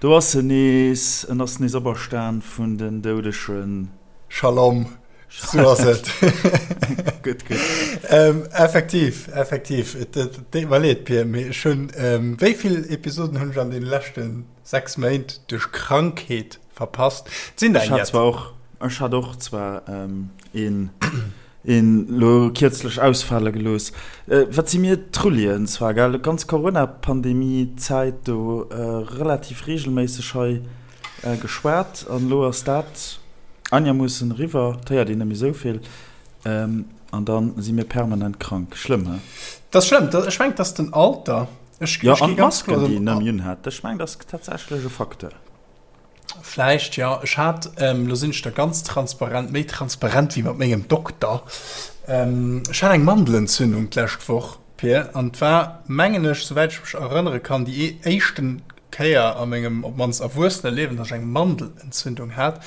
Do ass en nees, en ass nees operstan vun den Doudegen. Shalom, sou ass et. Gutt, gutt. Effektiv, effektiv. Et deet mer leed, Pir, mee ech hunn, wéi vill Episoden hunn ech an deene leschte 6 Méint duerch Krankheet verpasst? Et sinn der Ech hat eng zwar och, ech hat och zwar een. Een lo kierzlech ausfale gelooss. Wat si mir Trullien zwar, gell, ganz Corona-Pandemie-Zäit do relativ reegelméisseg hei geschwat an elo ass dat einermoossen eriwwer, et héiert een net méi esou vill an da si mir permanent krank. Schlëmm, he? Dat ass schlëmm. Ech mengen, et ass den Alter. Ech Jo, an d'Masken, déi een net méi unhat. Ech mengen, dat ass tatsächlech e Facteur. Vläicht, jo. Ech hat, lo sinn ech da ganz transparent, méi transparent wéi mat mengem Dokter, ech hat eng Mandelentzündung d'lescht Woch, Pir, an et war, mengen ech, souwäit ech mech erënnere kann, déi éischten Kéier a mengem op d'mannst erwuessene Liewen, datt ech eng Mandelentzündung hat.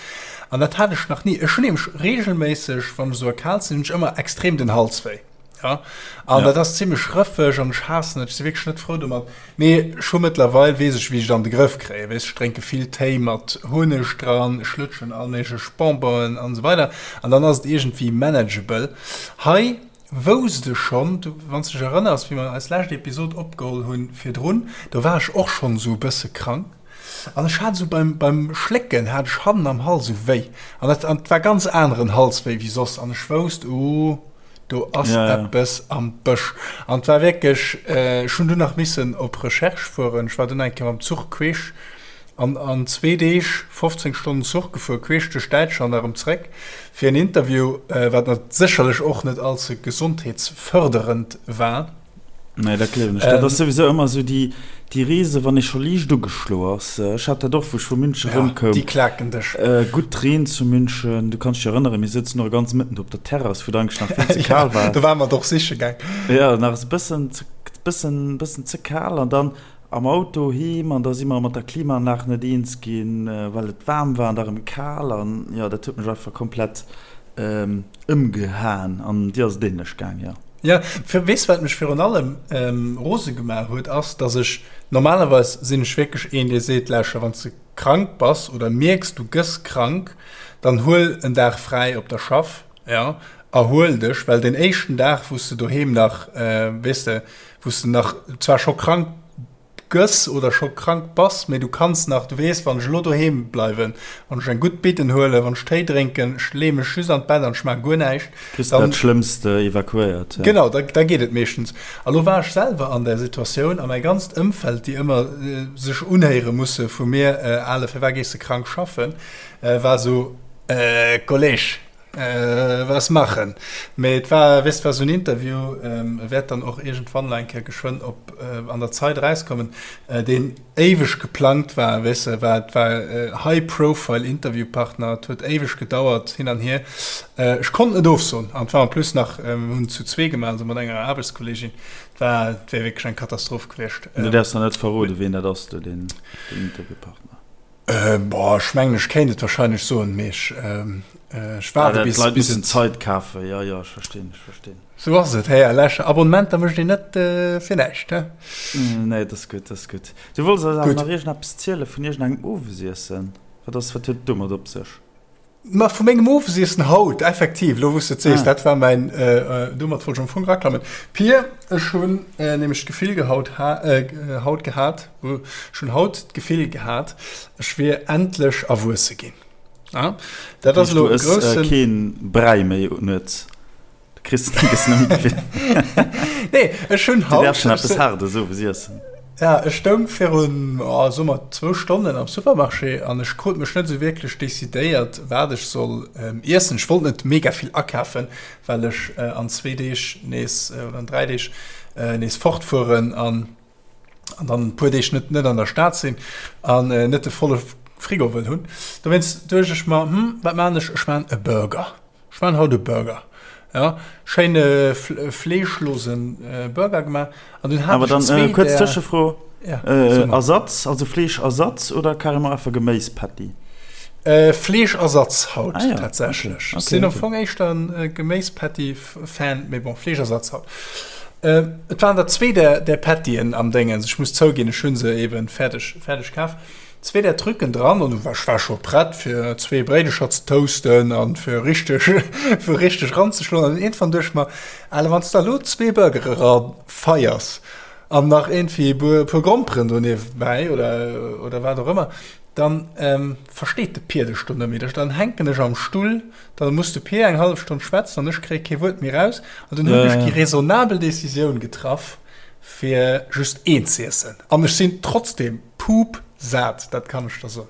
An dat hat ech nach ni. Ech hunn nämlech reegelméisseg, wann ech esou erkaalt sinn, hunn ech ëmmer extrem den Hals wéi. Ja, an ja. dat ass zimmlech rëffeg an ech haassen et, ech si wierklech net frou domat. Mee ech hu mëttlerweil, weess ech, wéi ech et an de Grëff kréien. Weess, ech drénke vill Téi mat Hunneg dran, ech lutschen all méiglech Bonbonen an esou weider an dann ass et iergendwéi manageable. Hei wousst ech schonn, du, wann s de dech erënners, wéi mer eis lescht Episod opgeholl hunn virdrun, do war ech och schonn esou e bësse krank an ech hat esou beim, beim Schlécken hat ech hannen am Hals esou wéi an dat, an et war ganz aneren Halswéi wéi soss an ech wousst, uh, Do ass ja, ja. eppes am Bësch. An et war wierklech, ech hunn dunn nach missen op Recherche fueren. Ech war dunn eng Kéier mam Zuch queesch an an zwee Deeg 15 Stonnen Zuch gefuer, queesch duerch Däitschland a rëm zréck fir en Interview, wat nat sécherlech och net allze gesondheetsfërderend war. Nee, dat gleewen ech. Dat ass souwisou ëmmer esou déi, déi Reese wann ee scho liicht ugeschlo ass. Ech hat dat och, wou ech vu München Ja, erëmkoum. déi klaken dech. Gutt Reen zu München, du kanns dech erënneren, mir souzen och e ganze Mëtten do op der Terrass, wou et eigentlech nach vill ze Ja, kal war. do ware mer et och siche gaang. Ja, nach e bëssen ze, bëssen, bëssen ze kal an dann am Auto heem an da si mer mat der Klimaanlag net eens ginn, well et waarm war an da rëm kal an jo, dat huet mech einfach komplett ëmgehaen an dir ass et ähnlech gaang, jo. Jo, weess wat mech virun allem rose gemaach huet, ass dass ech, normalerweis sinn ech wierklech een dee seet, lauschter wann s de krank bass oder mierks du gëss krank, dann huel en Dag fräi op der Schaff, jo, erhuel dech, well deen éischten Dag wou s de doheem nach, weess de, wou s de nach zwar scho krank gëss oder scho krank bass, mee du kanns nach, du weess, wann ech elo doheem bleiwen, wann ech eng gutt Bidden huelen, wann ech Téi drénken, ech leeë mech just an d'Bett an ech maache guer näischt, Kriss de dat Schlëmmst evakuéiert, ja. Genau, da da geet et meeschtens. A lo war ech selwer an där Situatioun a mäi ganzt Ëmfeld, déi ëmmer sech unhéiere musse vu mir, Ale, firwat gees de krank schaffen, war esou, Kolleg, Was machen? Mee et war, weess, et war esou en Interview, e wäert dann och iergendwann nach eng Kéier geschwënn op an der Zeit erauskommen, deen éiweg geplangt war, weess de, war, et war high profile Interviewpartner, et huet éiweg gedauert hin an hier. Ech konnt net ofsoen an et war en plus nach, mir hunn et zu zwee gemaach, also mat enger Aarbechtskolleegin, et war, et wär wierklech eng Katastroph gewiescht. Du däerfs nach net verroden, wien dat ass do, deen Interviewpartner. Boah, ech mengen ech kéint et wahrscheinlech soen, mee ech ech waarde bis D'Leit mussen Zait kafen, jo jo, ech verstinn, ech verstinn. Sou ass et, Här Lesch. Abonnementer mécht een net fir näischt, he? Nee, dat ass gutt, dat ass gutt. Du wollts eis awer nach iergendeppes ziele vun iergendengem Owesiessen. Wat ass, wat huet et domat op sech? Ma vu mengem Owesiessen haut, effektiv, elo wou s de et sees, dat war mäin, domat wollt ech am Fong eraklammen. Pir, ech hunn nämlech d'Gefill gehaut, haut gehat, ech hunn haut d'Gefill gehat, ech wier endlech erwuesse ginn. Dat ass elo e groussen. Du ëss keen Bräi méi nuets? Du kriss gëss net méi gewinnt. Nee, ech hunn haut. Du däerfs schon eppes Haardes owes iessen. Ja, ech stoung virun, oh, soe mer zwou Stonnen am Supermarché an ech krut mech net esou wierklech decidéiert, wat ech soll iessen. Ech wollt net mega vill akafen, well ech an zwee Deeg nees, oder an dräi Deeg nees fortfueren an an dann e puer Deeg net net an der Stad sinn an net de volle Frigo wëll hunn. Dowéinst duecht ech mer, hm, wat maan ech? Ech maan e Burger. Ech maan haut e Burger. Ja, schéine fleeschlosen Burger gemaach. An dunn hat ech zwee där. Kuerz Tëschefro, Ersatz, also Fleeschersatz oder carrément einfach Geméispatty? Fleeschersatz haut tatsächlech. Ech sinn am Fong éischter e Geméispatty-Fan, mee bon, Fleeschersatz haut. Et waren der zwee där Pattyen am Déngens. Ech muss zouginn, ech hu se eben fäerdeg kaf. Zwee där Trucken dran an ech war scho prett fir zwee Bréidecher ze toasten an fir richteg fir richteg ranzeschloen an iergendwann duecht ech mer, Ale wann s de elo zwee Burgere ra feiers an nach iergendwéi e puer Gromperen do niewebäi oder oder wat och ëmmer, dann versteet de Pier dech do net méi. Dann hänken ech am Stull, da muss de Pier eng hallef Stonn schwätzen an ech kréie kee Wuert méi raus an dunn hunn ech déi raisonnabel Decisioun getraff, fir just een z'iessen an ech sinn trotzdem pup sat, dat kann ech der soen.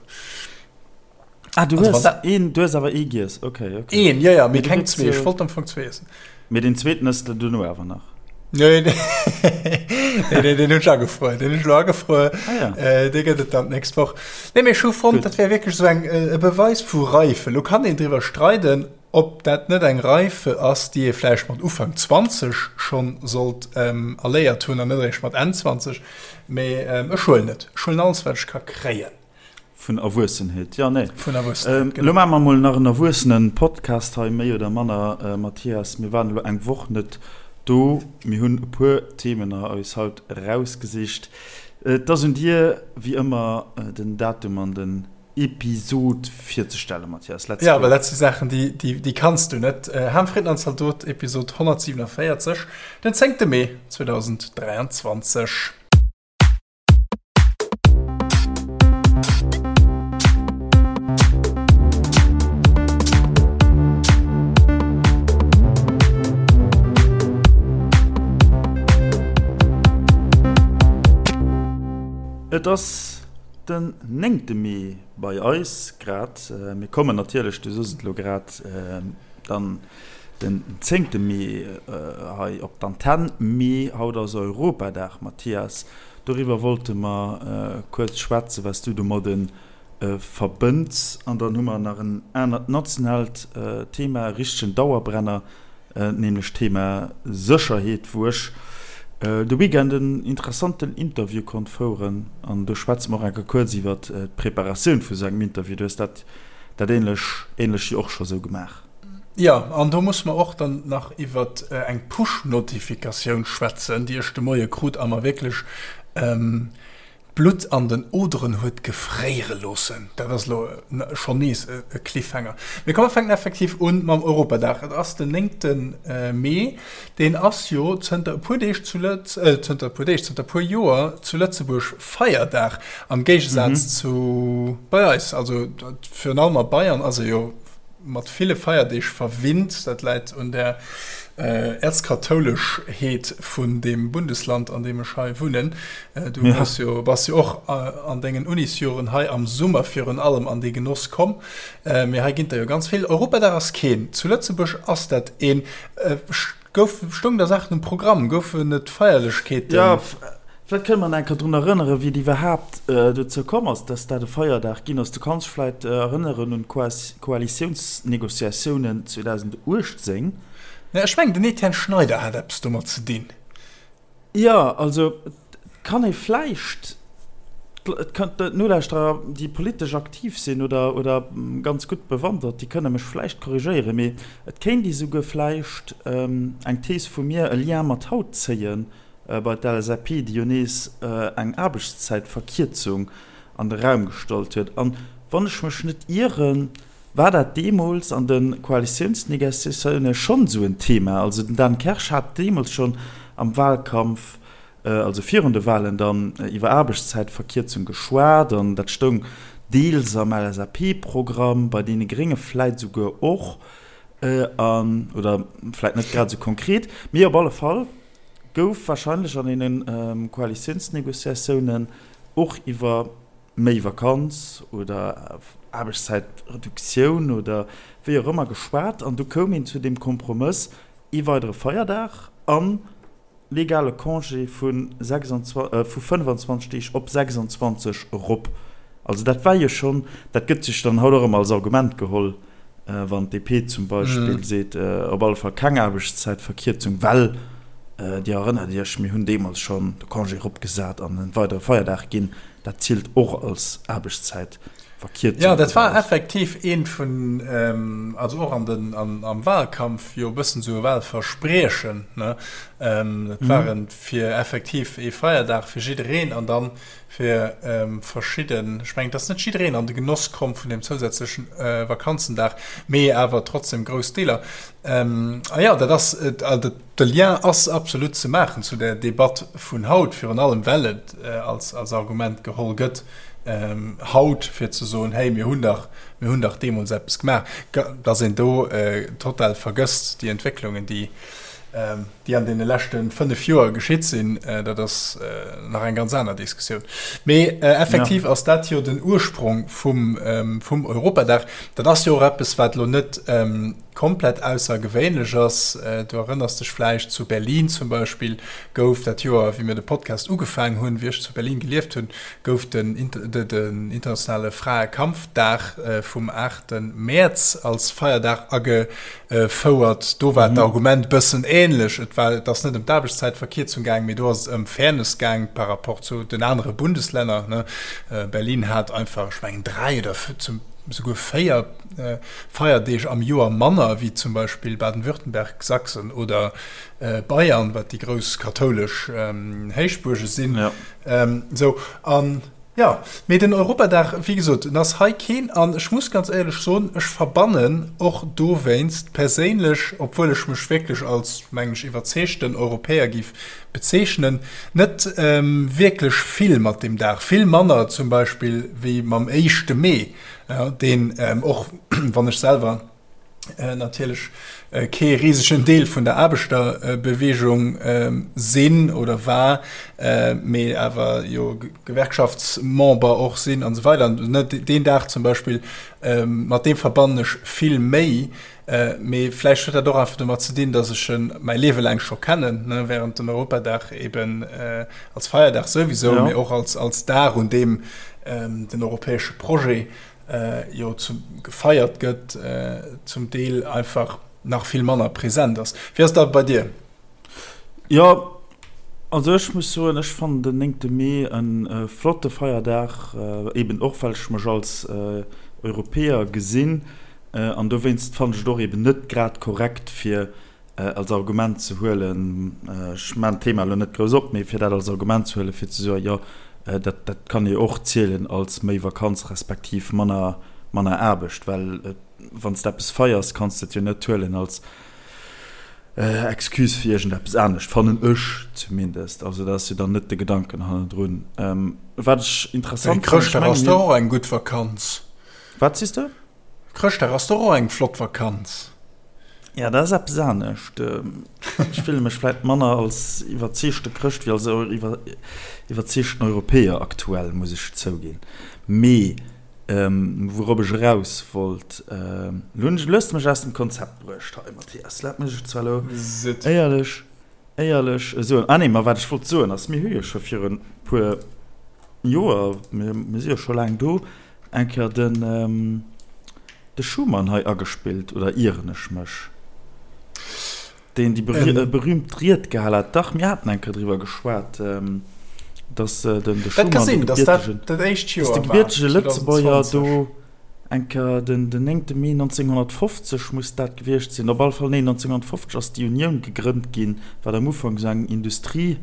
Ah, du hues een, du hues awer ee giess, okay, okay. Een, jo, jo, mee keng zwee, ech wollt am Fong zwee iessen. Mee deen zweeten ëss de duerno awer nach? Nee, nee, nee, deen hunn ech agefruer, deen hunn ech elo agefruer. Ah, ja. Äh, dee gëtt et dann d'nächst Woch. Nee, mee ech hu fonnt, dat wär wierklech esou eng, e Beweis vu Reife. Lo kann een driwwer streiden, Ob dat net eng Reife ass, déi ee vläicht mat Ufank 20 schonn sollt erléiert hunn an net eréischt mat Enn 20, mee ech huelen et. Ech huelen alles, wat ech ka kréien. Vun Erwuessenheet, jo, nee. Vun Erwuessenheet, genau. Elo maache mer mol nach en Erwuessenen-Podcast hei, méi oder manner, Mathias. Mir waren elo eng Woch net do. Mir hunn e puer Themen eis haut erausgesicht. Et ass un dir, wéi ëmmer, den Datum an den Episod virzestellen, Mathias. Let's go. Ja, well dat si Saachen, déi, déi, déi kanns du net. Ham, Fritten an Zaldot, Episod 147, den 10. Mee 2023. Et ass Den néngte Mee bei eis grad. Mir kommen natierlech, du soos et elo grad, dann den zéngte Mee hei op d'Antenn. Mee haut ass Europadag, Mathias. Doriwwer wollte mer kuerz schwätzen, wat s du domadde verbënns. An dann hu mer nach en anert nationaalt Thema, e richtegen Dauerbrenner, nämlech d'Thema Sécherheet, wou ech de Weekend en interessanten Interview konnt foueren. An do schwätze mer och enker kuerz iwwer d'Preparatioun vu sou engem Interview. Du hues dat dat ähnlech ähnlech jo och scho sou gemaach. Jo, an do musse mer och dann nach iwwer eng Push-Notifikatioun schwätzen, déi ech de Moie krut a mer wierklech D'Blutt an den Oderen huet gefréiere loossen. Dat ass elo schonn nees e Cliffhanger. Mee komm, mer fänken effektiv un mam Europadag. Et ass den néngte Mee. Deen ass jo zënter e puer Deeg zu Lëtz, zënter e puer Deeg, zënter e puer Joer zu Lëtzebuerg Feierdag, am Géigesaz zu bei eis. Also virun allem a Bayern ass e jo mat ville Feierdeeg verwinnt. Dat läit un der Äerzkathouleschheet vun deem Bundesland, an deem ech hei wunnen. Du hues jo, bass jo och an dengen Unisjoren hei am Summer virun allem an dee Genoss komm. Mee hei ginn der jo ganz vill. Europadag ass keen. Zu Lëtzebuerg ass dat een. Gouf, stoung da Saachen um Programm? Goufen et Feierlechkeeten? Jo, vläicht kënne mer nach eng Kéier drun erënneren, wéi et iwwerhaapt dozou komm ass, dass dat e Feierdag ginn ass. Du kanns dech vläicht erënneren un d'Koalitiounsnegociatiounen 2018. Mä ech mengen, den Etienne Schneider hat eppes domat ze dinn. Jo, also et kann ee vläicht, et kënnt d'Nolauschterer, déi politesch aktiv sinn oder oder ganz gutt bewandert, déi kënne mech vläicht korrigéieren, mee et kéint ee souguer vläicht eng Thees vu mir, e Lien mat haut zéien bei d'LSAP, déi jo nees eng Aarbechtszäitverkierzung an de Raum gestallt huet. An wann ech mech net ieren, war dat deemools an de Koalitiounsnegociatioune schonn esou en Thema. Also den Dan Kersch hat deemools schonn am Wahlkampf, also virun de Wahlen dann, iwwer Aarbechtszäitverkierzung geschwat an dat stoung deels am LSAP-Programm, bei deene Grénge vläit esouguer och, an, oder vläit net grad esou konkret, mee op alle Fall gouf wahrscheinlech an deene Koalitiounsnegociatiounen och iwwer méi Vakanz oder Aarbechtszäitreduktioun oder wéi och ëmmer geschwat an du koum een zu deem Kompromëss, ee weidere Feierdag an legale Congé vu 25 Deeg op 26 erop. Also dat war jo schonn, dat gëtt sech dann haut och ëmmer als Argument geholl, wann d'DP zum Beispill seet, op alle Fall keng Aarbechtszäitverkierzung, well Dir erënnert Iech, mir hunn deemools schonn de Congé eropgesat an e weidere Feierdag ginn, dat zielt och als Aarbechtszäitverkierzung. Verkierzung. Jo, dat war effektiv eent vun, also och an den, an, am Wahlkampf jo e bëssen esou e Wahlverspriechen, ne? Dat war en fir effektiv ee Feierdag fir jiddereen an dann fir verschidden, ech mengen, et ass net jiddereen an de Genoss komm vun deem zousätzlechen Vakanzendag, mee awer trotzdem grouss Deeler. A jo, dat ass, de Lien ass absolut ze maachen zu där Debatt vun haut, virun allem well et als, als Argument geholl gëtt haut, fir ze soen, hey, mir hunn dach, mir hunn dach deemools eppes gemaach. Dass een do total vergësst déi Entwécklungen, déi, déi an deene leschte 5 Joer geschitt sinn, dat ass nach eng ganz aner Diskussioun. Mee effektiv ass dat jo den Ursprong vum, vum Europadag. Dat ass jo och eppes, wat elo net komplett aussergewéinlech ass. Du erënners dech vläicht, zu Berlin zum Beispill gouf dat Joer, wéi mir de Podcast ugefaangen hunn, wéi ech zu Berlin gelieft hunn, gouf den internationale Fraekampfdag vum 8 Mäerz als Feierdag agefouert. Do war d'Argument bëssen änlech. Et war, et ass net ëm d'Aarbechtszäitverkierzung gaang, mee do ass et ëm Fairness gaang par rapport zu den anere Bundeslänner. Berlin hat einfach, ech mengen, 3 oder souguer 4 Feierdeeg am Joer manner wéi zum Beispill Baden-Württemberg, Sachsen oder Bayern, wat déi grouss kathoulesch Héichbuerge sinn. Sou, an jo, mee den Europadag, wéi gesot, en ass hei keen. An ech muss ganz éierlech soen, ech verbannen och dowéinst perséinlech, obwuel ech mech wierklech als, mengen ech, iwwerzeegten Europäer géif bezeechnen, net wierklech vill mat deem Dag. Vill manner zum Beispill wéi mam éischte Mee. Deen, och wann ech selwer natierlech kee risegen Deel vun der Aarbechterbeweegung sinn oder war, mee awer jo Gewerkschaftsmember och sinn an esou weider, deen Dag zum Beispill, mat deem verbannen ech vill méi. Mee vläicht huet dat och einfach domat ze dinn, datt ech en mäi Liewe laang scho kennen, ne, während den Europadag eben als Feierdag souwisou, mee och als, als Dag, un deem den europäesche Projet jo zu, gefeiert gëtt, zum Deel einfach nach vill manner present ass. Wéi ass dat bei dir? Jo, also ech muss soen, ech fannen den néngte Mee e flotte Feierdag, eben och well ech mech als Europäer gesinn. An dowéinst fannen ech et och eben net grad korrekt fir als Argument ze huelen, ech maachen d'Thema elo net grouss op, mee fir dat als Argument ze huelen, fir ze soen, jo dat dat kann ee och zielen als méi Vakanz respektiv manner manner Aarbecht, well wann s de eppes feiers, kanns de et jo net huelen als Excuse fir iergendeppes anescht, fannen ech zumindest. Also dat ass jo dann net de Gedanken hannendrun. Wat ech interessant fannen, ech mengen, Chrëschtdag ass dach och eng gutt Vakanz. Wat sees de? Chrëschtdag ass doch och eng flott Vakanz. Ja, dat ass eppes anescht. Ech fille mech vläit manner als iwwerzeegte Chrëscht wéi als iwwerzeegten Europäer aktuell, muss ech zouginn. Mee wourop ech eraus wollt, elo hunn ech, elo hues de mech aus dem Konzept bruecht hei, Mathias. Looss mech et zwar elo éierlech, éierlech soen. Ah nee, ma wat ech wollt soen ass, mir hu jo scho virun e puer Joer, mir si jo scho laang do, Eng Kéier den de Schumann hei agespillt, oder ieren ech mech? Deen déi berühmt Ried gehal hat. Dach, mir haten eng Kéier driwwer geschwat, dass den de Schumann, de gebiertegen, dass de gebiertege Lëtzebuerger do eng Kéier den den 9. Mee 1950 muss dat gewiescht sinn, op alle Fall, nee, 1950 ass déi Unioun gegrënnt ginn, wat am Ufank esou eng Industrie,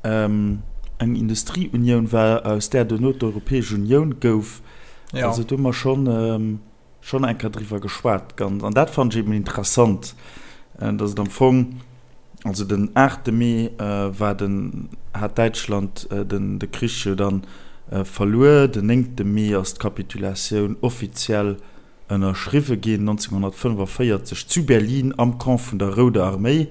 eng Industrieunioun war, aus där duerno d'Europäesch Unioun gouf. Ja. Also do hu mer schonn, schonn eng Kéier driwwer geschwat. Ganz, an dat fannen ech eben interessant, dass et am Fong, also den 8. Mee war den, hat Däitschland den, de Krich jo dann verluer, den 9. Mee ass d'Kapitulatioun offiziell ënnerschriwwe ginn, 1945 zu Berlin am Camp vun der Rouder Arméi.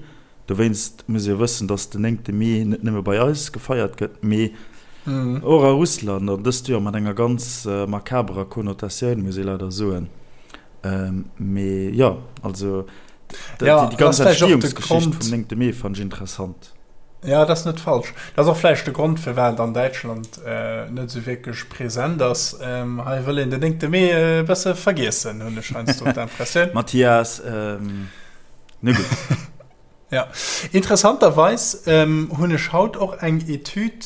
Dowéinst muss ee wëssen, datt den 9. Mee net nëmme bei eis gefeiert gëtt, mee och a Russland, an dëst Joer mat enger ganz makaberer Konnotatioun, muss ee leider soen. Mee jo, also déi ganz Entstehungsgeschicht vum 9. Mee fannen ech interessant. Jo, dat ass net falsch. Dat ass och vläicht de Grond, firwat an Däitschland net esou wierklech present ass. Hei wëll een den 9. Mee e bësse vergiessen, hunn ech heiansdo d'Impressioun. Mathias, Na gutt. Ja, interessanterweis hunn ech haut och eng Etüd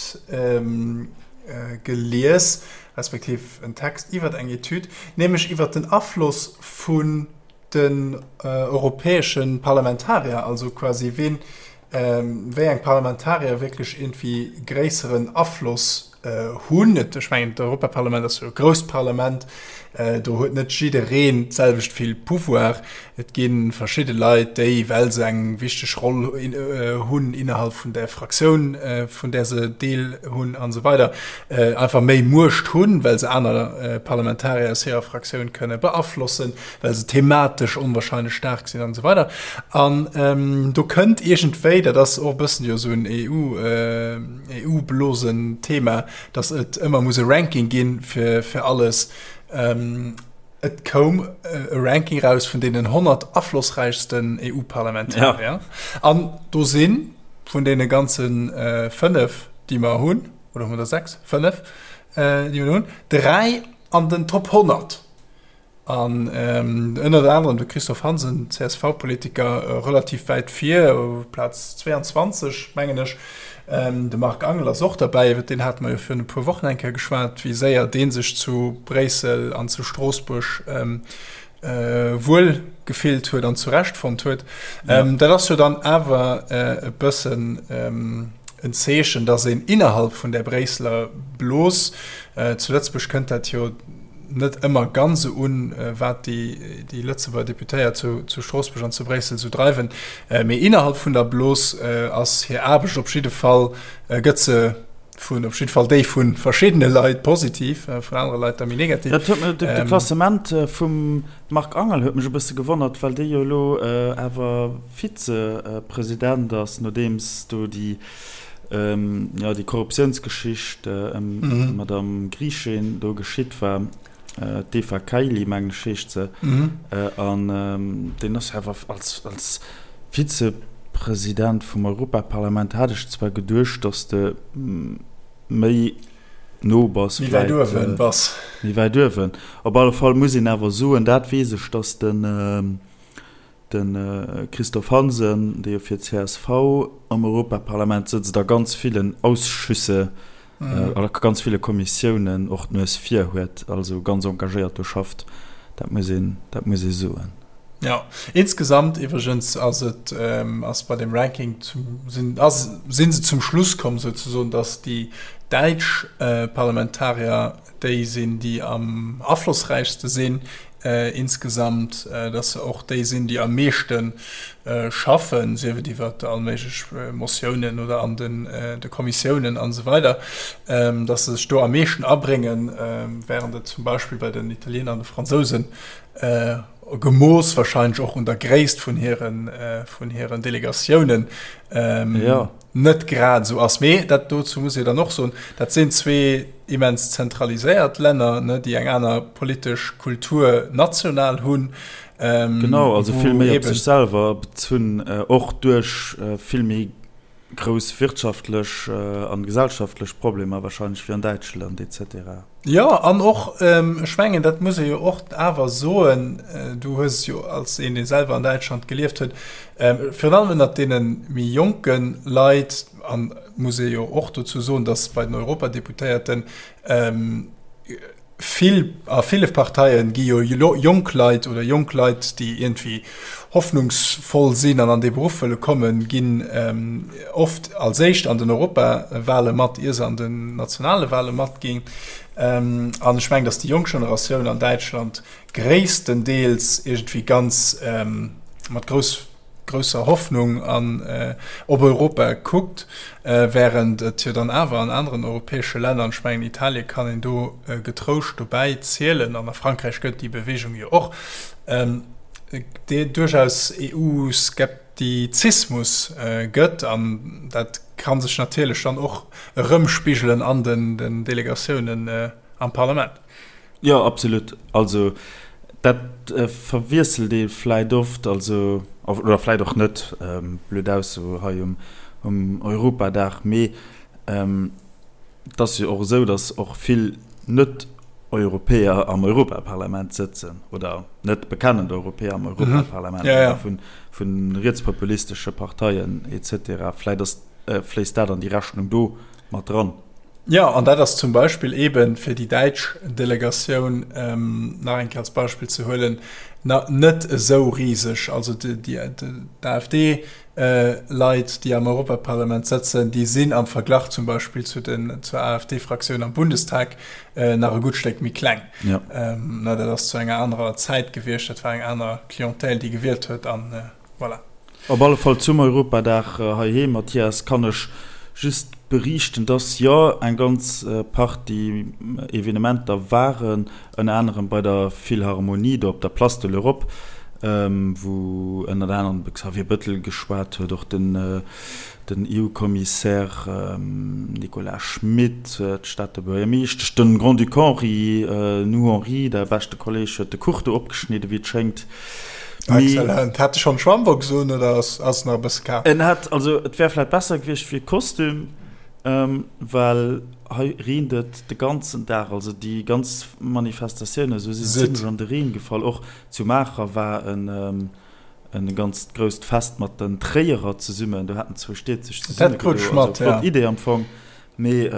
gelies. respektiv en Text iwwert eng Etüd, nämlech iwwert den Afloss vun den europäesche Parlamentarier, also quasi ween, wéi eng Parlamentarier wierklech iergendwéi gréisseren Afloss hunn. Ech mengen, d'Europaparlament ass jo e grousst Parlament, do huet net jiddereen d'selwecht vill Pouvoir. Et gi verschidde Leit, déi, well se eng wichteg Roll hunn innerhalb vun der Fraktioun, vun där se Deel hunn an esou weider, einfach méi Muecht hunn, well se aner Parlamentarier aus hirer Fraktioun kënne beaflossen, well se thematesch onwahrscheinlech staark sinn an esou weider. An do kënnt iergendwéi, dat ass och e bëssen jo esou en EU, EU-Blosen-Thema, datt et ëmmer muss e Ranking gi fir, fir alles. Et koum e Ranking raus vun deenen 100 aflossräichsten EU-Parlamentarier. An do si vun deene ganze 5, déi mer hunn, oder hu mer der 6? 5, déi mer hunn, 3 an den Top 100. An ënnert anerem de Christophe Hansen, CSV-Politiker, relativ wäit vir, Plaz 22, mengen ech. De Marc Angel ass och derbäi, iwwer deen hate mer jo virun e puer Wochen eng Kéier geschwat, wéi séier dee sech zu Bréissel an zu Stroossbuerg wuel gefillt huet an zurecht fonnt huet. Dat ass jo dann awer e bëssen en Zeechen, datt een innerhalb vun där Bréisseler Blos, zu Lëtzebuerg kënnt dat jo, net ëmmer ganz esou un, wat déi Lëtzebuerger Deputéiert zu Stroossbuerg an zu Bréissel esou dreiwen. Mee innerhalb vun der Blos ass hir Aarbecht op jidde Fall, gëtt se vun, op jidde Fall déi vu verschiddene Leit positiv, vun anere Leit da méi negativ. Dat huet mech, de Klassement vum Marc Angel huet mech e bësse gewonnert, well dee jo elo awer Vizepresident ass, nodeems do déi jo, déi Korruptiounsgeschicht ëm d'Madame Griechin do geschitt war, d'Eva Kaili, mengen ech, heescht se, an deen ass jo awer als, als Vizepresident vum Europaparlament, hat ech zwar geduecht, datt de méi no bass, méi wäit uewen bass. Méi wäit uewen. Op alle Fall muss een awer soen, dat weess ech, datt den, De Christophe Hansen, dee jo fir csv am Europaparlament sëtzt, a ganz villen Ausschüsse, a ganz ville Kommissiounen och d'Nues vir huet, also ganz engagéiert do schafft, dat muss een, dat muss ee soen. Jo, insgesamt iwwregens ass et, ass bei deem Ranking zum, sinn, ass, si se zum Schluss komm souzesoen, datt déi däitsch Parlamentarier déi sinn, déi am aflossräichste sinn insgesamt, dass se och déi sinn, déi am meeschte schaffen, sief et iwwer all méiglech Motiounen oder an de Kommissiounen an esou weider, dass se sech do am meeschten abréngen, während et zum Beispill bei den Italiener an de Fransousen, gemooss wahrscheinlech och un der Gréisst vun hiren Delegatiounen, net grad esou ass. Mee dat dozou muss ee dann och soen, dat sinn zwee immens zentraliséiert Länner, ne, déi eng aner politesch Kultur national hunn. Genau, also vill méi op sech selwer bezunn, och duerch vill méi grouss wirtschaftlech an gesellschaftlech Problemer wahrscheinlech wéi an Däitschland et cetera. Jo, an och, ech mengen, dat muss ee jo och awer soen, du hues et jo als een, dee selwer an Däitschland gelieft huet, virun allem ënnert deene méi jonke Leit, an muss ee jo och dozou soen, datt bei den Europadeputéierten vill, a ville Parteie gi jo jonk Leit oder jonk Leit, déi iergendwéi hoffnungsvoll sinn an an dee Beruff wëlle kommen, ginn oft als éischt an den Europawale mat, ier se an den nationale Wale matginn. An ech mengen, datt déi jonk Generatioun an Däitschland gréisstendeels iergendwéi ganz mat grouss, grousser Hoffnung an op Europa kuckt, während et jo dann awer an aneren europäesche Länner, an ech mengen Italie kann een do getrouscht dobäi zielen, an a Frankräich gëtt déi Bewegung jo och, duerchaus EU-Skeptizismus gëtt. An dat ka sech natierlech dann och erëmspigelen an den Delegatiounen am Parlament. Jo, absolut. Also dat verwiesselt ee vläit oft, also oder vläit och net, blöd Ausso hei um Europadag, mee et ass jo och esou, datt och vill Net-Europäer am Europaparlament sëtzen oder net bekennend Europäer am Europaparlament oder vu rietspopulistesche Parteien et cetera. Vläit ass, fléisst dat an déi Rechnung do mat dran. Jo, an dat ass zum Beispill eeben, fir déi däitsch Delegatioun nach eng Kéier als Beispill ze huelen, net esou riseg. Also d'AfD-Leit, déi am Europaparlament sëtzen, déi sinn am Verglach zum Beispill zu den, zur AfD-Fraktioun am Bundestag nach e gutt Stéck méi kleng. Dat ass zu enger anerer Zäit gewiescht, dat war eng aner Clientèle, déi gewielt huet an voilà. Op alle Fall zum Europadag heiheem, Mathias, kann ech just beriichten, dass jo eng ganz Partie Evenementer waren, ënner anerem bei der Philharmonie do op der Place de l'Europe, wou ënnert anerem de Xavier Bëttel geschwat huet, och den EU-Kommissär Nicolas Schmit, d'Stater Buergermeeschtesch, de Grand-Duc Henri, nu Henri, däi beschte Kolleeg, huet de Kuch do opgeschnidden, wéi et schéngt. Excellent. Hat e schonn Schwammbox un oder ass ass nach e bësse kal? En hat, also et wär vläit besser gewiescht fir Kostüm, well hei reent et de ganzen Dag, also déi ganz Manifestatiounen esou si zimlech an de Reen gefall. Och zu Maacher war en e ganzt grousst Fest mat den Tréierer zesummen, do haten zwou Stied sech zesumme gedo, also flott Idee am Fong. Mee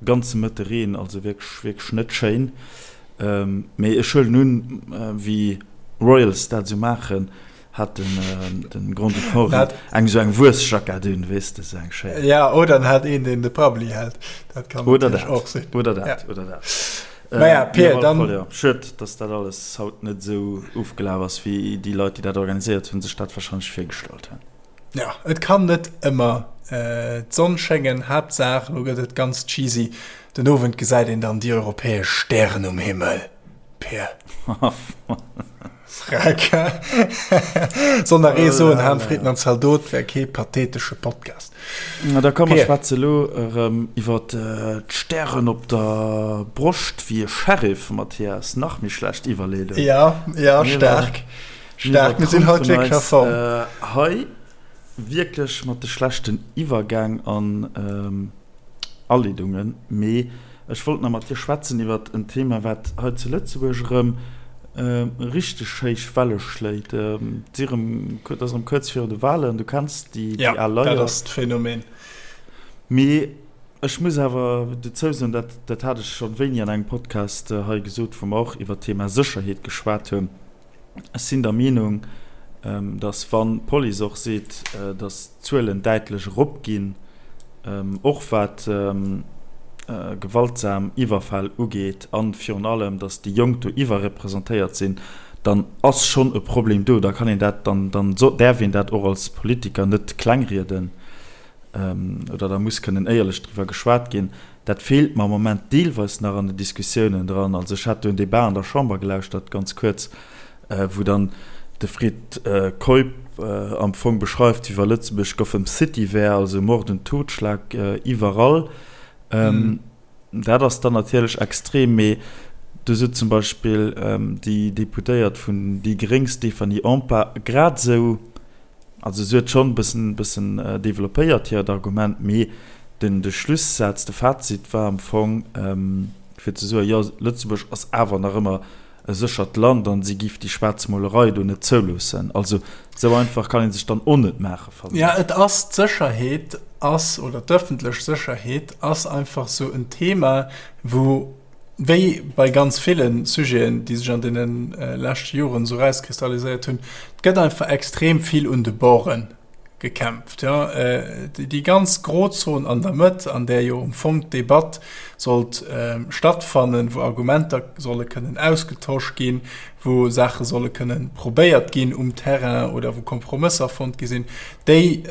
ganze Mëtte Reen, also wierklech wierklech net schéin. Mee ech huelen un, wéi Royals dat esou maachen, hat den den Grand-Duc Henri eng esou eng Wuessjackett un, weess de, esou eng schéin. Ja, oder en hat een, deen de Prabbeli hält, dat kann natierlech och sinn. Oder dat, oder dat. Naja, Pir, dann. Jo, schued, dass dat alles haut net esou ofgelaf ass, wéi déi Leit, déi dat organiséiert hunn, sech dat warscheinlech virgestallt hunn. Jo, et kann net ëmmer d'Sonn schéngen. Haaptsaach, elo gëtt et ganz cheesy, den Owend gesäit een dann déi europäesch Stären um Himmel, Pir. Freck. Soll nach ee soen, Ham, Fritten an Zaldot wär kee pathetesche Podcast. Na da komm, mer schwätze elo erëm iwwer d'Stären op der Broscht wéi e Sheriff, Mathias. Nach méi schlecht Iwwerleedung. Jo, jo, staark. Staark, mir sinn haut wierklech a Form. Hei wierklech mat de schlechten Iwwergäng an Aleedungen. Mee ech wollt nach mat dir schwätzen iwwert en Thema, wat hei zu Lëtzebuerg erëm richteg héich Welle schléit. Et si erëm, et ass erëm kuerz viru de Walen, du kenns déi al Leier. Jo, dat ass d'Phänomen. Mee ech muss awer dozou soen, dat, dat hat ech schonn wéini an engem Podcast hei gesot, wou mer och iwwert d'Thema Sécherheet geschwat hunn, Ech sinn der Meenung, datt wann d'Police och seet, datt d'Zuelen däitlech eropginn, och wat gewaltsam Iwwerfäll ugeet a virun allem, datt déi Jonk do iwwerrepresentéiert sinn, dann ass schonn e Problem do. Da kann een dat, dann däerf een dat och als Politiker net klengrieden oder da muss kënnen éierlech driwwer geschwat ginn. Dat feelt mer am Moment deelweis nach an den Diskussiounen dran. Also ech hat do en Débat an der Chamber gelauschtert, ganz kuerz, wou dann de Fred Keup am Fong beschreift, wéi wa Lëtzebuerg Gotham City wär, also Mord und Totschlag iwwerall. Dat ass dann natierlech extrem, mee do sot zum Beispill déi Deputéiert vun déi Gréng Stéphanie Empain grad esou, Also se huet schonn e bëssen, bëssen developpéiert hiert Argument, mee den, de Schlussaz, de Fazit war am Fong, fir ze soen, jo, Lëtzebuerg ass awer nach ëmmer e séchert Land an si giff déi Schwaarzmolerei do net zouloossen. Also esou einfach kann ee sech dann och net maachen, fannen ech. Jo, et ass, d'Sécherheet ass, oder d'ëffentlech Sécherheet ass einfach esou en Thema, wou, Wéi bei ganz ville Sujeten, déi sech an deene leschte Joren esou erauskristalliséiert hunn, et gëtt einfach extrem vill un de Borde gekämpft. Jo, déi ganz Grozon an der Mëtt, an där jo am Fong d'Debatt sollt stattfannen, wou Argumenter solle kënnen ausgetosch ginn, wou Saache solle kënnen probéiert ginn um Terrain oder wou Kompromësser fonnt gi sinn, déi,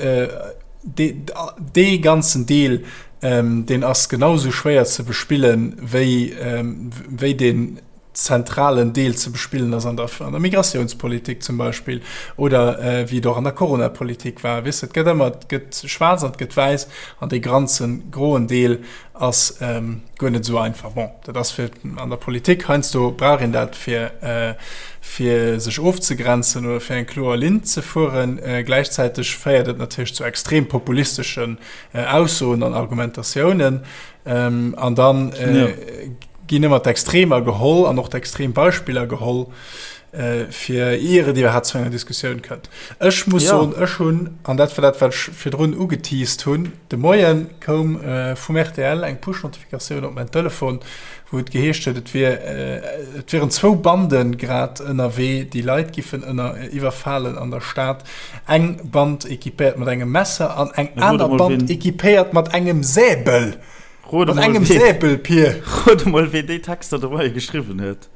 dee ganzen Deel, Deen ass genau sou schwéier ze bespillen, wéi, wéi deen zentralen Deel ze bespillen ass an der, an der Migratiounspolitik zum Beispill oder wéi et och an der Coronapolitik war. Weess de, et gëtt ëmmer, et gëtt schwaarz an et gëtt wäiss an dee granzen groen Deel ass guer net esou einfach. Bon, dat ass fir an der Politik, heiansdo brauch een dat fir, fir sech ofzegrenzen oder fir eng kloer Linn ze fueren. Gläichzäiteg féiert et natierlech zu extrem populisteschen Aussoen an Argumentatiounen an dann ginn ëmmer d'Extremer geholl an och d'extrem Beispiller geholl. fir ier et iwwerhaapt zu enger Diskussioun kënnt. Ech muss soen, ech hunn, an dat war dat, wat ech virdrun ugeteased hunn, de Moie koum vum rtl eng Push-Notifikatioun op mäin Telefon, wou et geheescht huet, et wier, et wieren zwou Bande grad ënnerwee, déi Leit giffen ënner iwwerfalen an der Stad. Eng Band equipéiert mat engem Messer an eng aner Band equipéiert mat engem Säbel. Mat engem Säbel, Pir! Rot emol, ween déi Texter de Moie geschriwwen huet.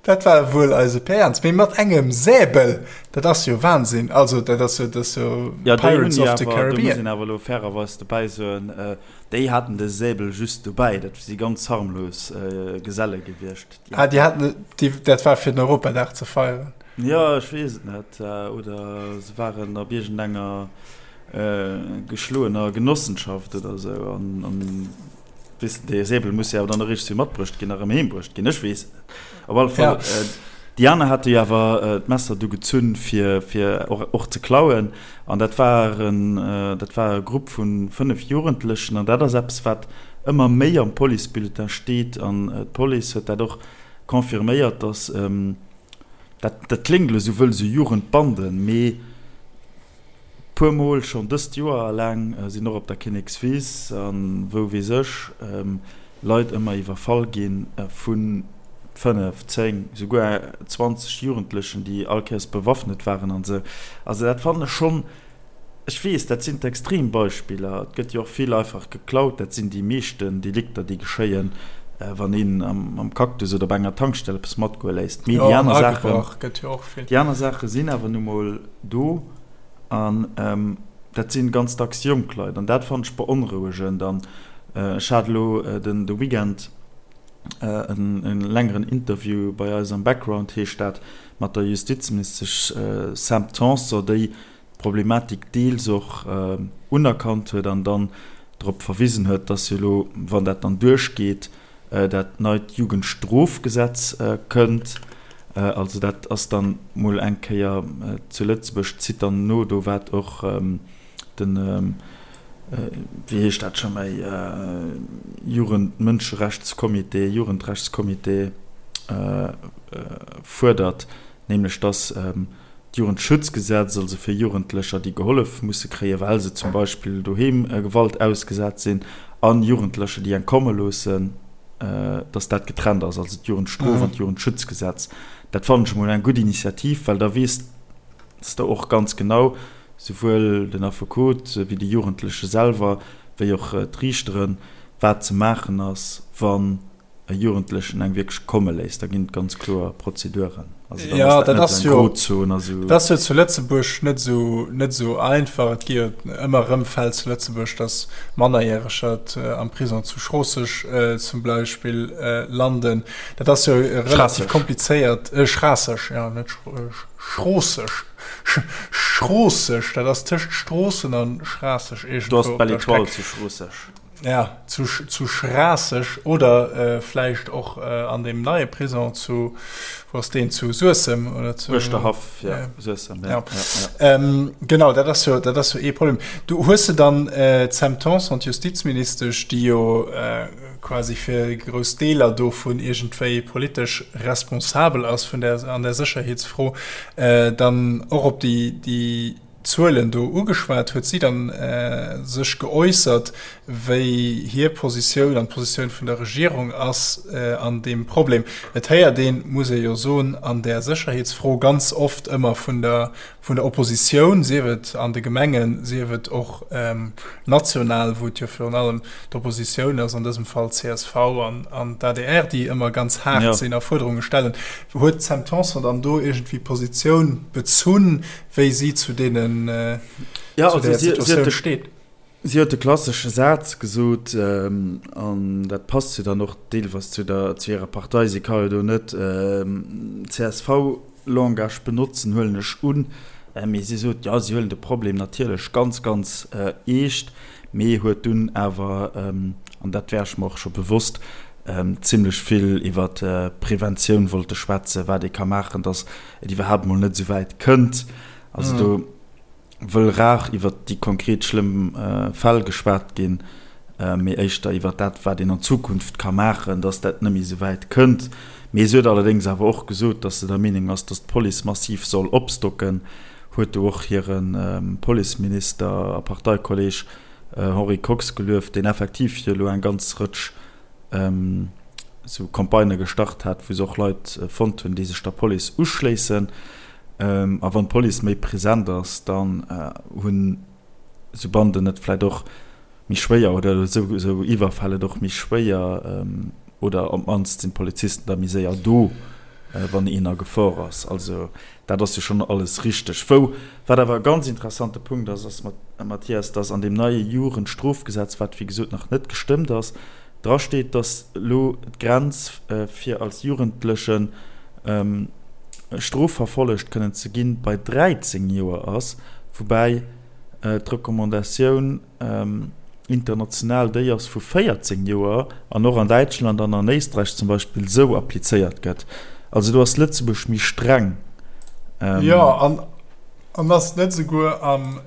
Dat war wuel eise Pär Ernst, mee mat engem Säbel, dat ass jo Wahnsinn. Also dat ass jo, dat ass jo Pirates of the Caribbean. Do muss een awer elo fairerweis dobäi soen, déi haten de Säbel just dobäi, dat si ganz harmlos Geselle gewiescht. Ah, déi haten, déi, dat war fir den Europadag ze feieren. Jo, ech weess et net. Oder se waren op iergendenger geschloener Genossenschaft oder esou an. Weess de, dee Säbel muss jo awer dann eréischt zu matbruecht ginn a rëm heem bruecht ginn. Ech weess et net. Op alle Fall, ja. Déi aner hate jo awer d'Messer du gezunn, fir, fir och, och ze klauen. An dat war en, dat war e Grupp vu 5 Jugendlechen. An dat ass eppes, wat ëmmer méi am Policebulletin steet. An d'Police huet dat och confirméiert, dass, dat, dat kléngt elo esou wëll, esou Jugendbanden, mee Puer mol schonn dëst Joer eleng sinn och op der Kinnekswiss an wou weess ech Leit ëmmer iwwerfall gi vu 5, 10, souguer 20 Jugendlechen déi all Kéiers bewaffnet waren an esou. Also dat fannen ech schonn, ech weess dat sinn d'Extrembeispiller, et gëtt jo och vill einfach geklaut, dat sinn déi meeschten Delikter déi geschéien wann een am Cactus oder op enger Tankstell eppes matgoe léisst. Mee déi aner Saachen, déi aner Saache sinn awer nu mol do an dat sinn ganz dacks jonk Leit an dat fannen ech beonrouegend an ech hat elo den de Weekend en längeren Interview bei eis am Background heescht dat mat der Justizministesch Sam Tanson déi d'Problematik deels och unerkannt huet an dann drop verwisen huet, dass jo elo wann dat dann duerchgeet dat neit Jugendstrofgesetz kënnt. Also dat ass dann mol eng Kéier zu Lëtzebuerg, zitt dann no do wat och den, wéi heescht dat scho méi, Jugendmënscherechtscomité, Jugendrechtscomité fuerdert, nämlech dass d'Jugendschutzgesetz, also fir Jugendlecher, déi gehollef musse kréien, well se zum Beispill doheem Gewalt ausgesat sinn, an Jugendlecher, déi eng komme loossen, dass dat getrennt ass, also d'Jugendstrof an d'Jugendschutzgesetz. Dat fannen ech emol eng gutt Initiativ, well da weess s de och ganz genau, souwuel den Affekot wéi de Jugendleche selwer, wéi och d'Riichteren, wat ze maachen ass, wann e Jugendlechen eng wierklech komme léisst, da ginn et ganz kloer Prozeduren. Also dann ass dat net esou eng Grozon a sou. Dat ass jo zu Lëtzebuerg net esou, net esou einfach. Et gi jo ëmmer erëm Fäll zu Lëtzebuerg, datt Mannerjäreger am Prisong zu Schroosseg zum Beispill landen. Dat ass jo relativ komplizéiert. Schraasseg, jo, net Schroosseg. Schroosseg, dat ass tëscht Stroossen a Schraasseg iergendwou. Do ass d'Belle Étoile zu Schroosseg. Ja, zu, zu Schraasseg oder vläicht och an deem neie Prison zu, wou ass deen, zu Suessem oder zu. Uerschterhaff, ja, Suessem, ja, ja. Ja. Genau, dat ass jo, dat ass jo ee Problem. Du hues de dann d'Sam Tanson, d'Justizministesch, déi jo quasi fir grouss Deeler dovun iergendwéi politesch responsabel ass vun där, an der Sécherheetsfro, dann och op déi, déi, Zuelen do ugeschwat, huet si dann sech geäussert, wéi hir Positioun an d'Positioun vun der Regierung ass an deem Problem. Et héiert een, muss ee jo soen, an där Sécherheetsfro ganz oft ëmmer vun der vun der Oppositioun, sief et an de Gemengen, sief et och national, wou et jo virun allem d'Oppositioun ass, an dësem Fall csv an d'ADR, déi ëmmer ganz haart sinn a Fuerderunge stellen. Huet d'Sam Tanson dann do iergendwéi Positioun bezunn? wéi si zu deenen ja, zu der Situatioun steet. Si huet de klassesche Saz gesot, an dat passt jo dann och deelweis zu der, zu hirer Partei, si ka jo do net CSV-Langage benotzen, huelen ech un, mee si sot, jo, si huelen de Problem natierlech ganz, ganz eescht, mee huet dunn awer, an dat war ech mer och scho bewosst, zimlech vill iwwer Preventioun wollte schwätzen, wat ee ka maachen, datt et iwwerhaapt mol net esou wäit kënnt. Also do wëll rar iwwer déi konkret schlëmm Fäll geschwat ginn, mee éischter iwwer dat, wat een an Zukunft ka maachen, datt dat net méi esou wäit kënnt. Mee se huet allerdéngs awer och gesot, datt se der Meenung ass, datt d'Police massiv soll opstocken, huet do och hire Policeminister a Parteikolleeg Henri Kox gelueft, deen effektiv jo elo eng ganz Rëtsch esou Campagnë gestart hat, wou se och Leit fonnt hunn, déi sech der Police uschléissen. A wann d'Police méi present ass, dann hunn esou Banden et vläicht och méi schwéier oder esou Iwwerfäll et och méi schwéier oder op d'mannst sinn d'Polizisten da méi séier do, wann een a Gefor ass. Also dat ass jo schonn alles richteg. Wou, wat awer e ganz interessante Punkt ass, ass, Mathias, dass an deem neie Jugendstrofgesetz, wat wéi gesot nach net gestëmmt ass, drasteet, dass elo d'Grenz fir als Jugendlechen strofverfollegt kënnen ze ginn, bei 13 Joer ass, woubäi d'Recommandatioun international déi ass vu 14 Joer an och an Däitschland an an Éisträich zum Beispill esou applizéiert gëtt. Also do ass Lëtzebuerg méi streng. Jo, an ass et net esouguer am,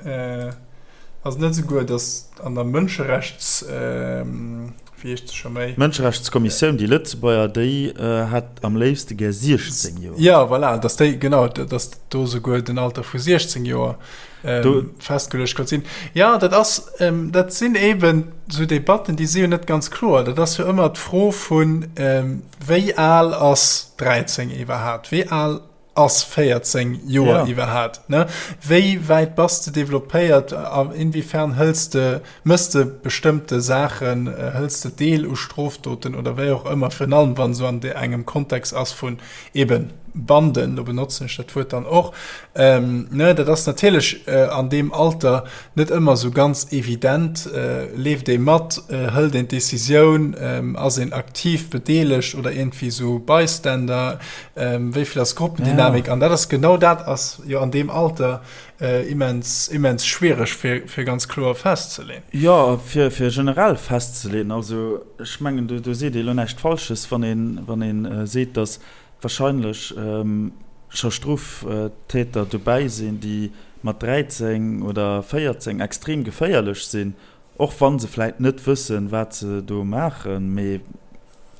ass et net esouguer, datt an der Mënscherechts, wéi heescht se scho méi? D'Mënscherechtskommissioun, déi Lëtzebuerger, déi hätt am léifste gär 16 Joer. Jo, voilà, datt déi, genau, datt do esouguer den Alter vu 16 Joer ähm, festgeluecht konnt sinn. Ja, dat ass, ähm, dat sinn eben so Debatten, déi si jo net ganz kloer. Dat ass jo ëmmer d'Fro vun, ähm, wéi al ass 13 iwwerhaapt? Wéi al ass 14 Joer ja. iwwerhaapt? Ne? Wéi wäit bass de developpéiert? Inwiefern hëls de, mëss de bestëmmte Saachen, äh, hëls de Deel u Strofdoten oder wéi och ëmmer, virun allem wann so an de engem Kontext ass vun eben Banden, do benotzen ech dat Wuert dann och, ähm, ne, dat ass natierlech äh, an deem Alter net ëmmer sou ganz evident. Äh, leeft ee mat, äh, hëlt een d'Decisioun, ähm, ass een aktiv bedeelegt oder iergendwéi sou Bystander, ähm, wéi vill ass Gruppendynamik? Ja. An dat ass genau dat ass jo an deem Alter äh, immens, immens schwiereg fir, fir ganz kloer festzeleen. Jo, fir, fir generell festzeleen. Also ech mengen, do, do seet ee lo näischt Falsches, wann een, wann een äh, seet, datt wahrscheinlech ähm, scho Stroftäter dobäi sinn, déi mat 13 oder 14 extrem geféierlech sinn, Och wa se vläit net wëssen, wat se do maachen, mee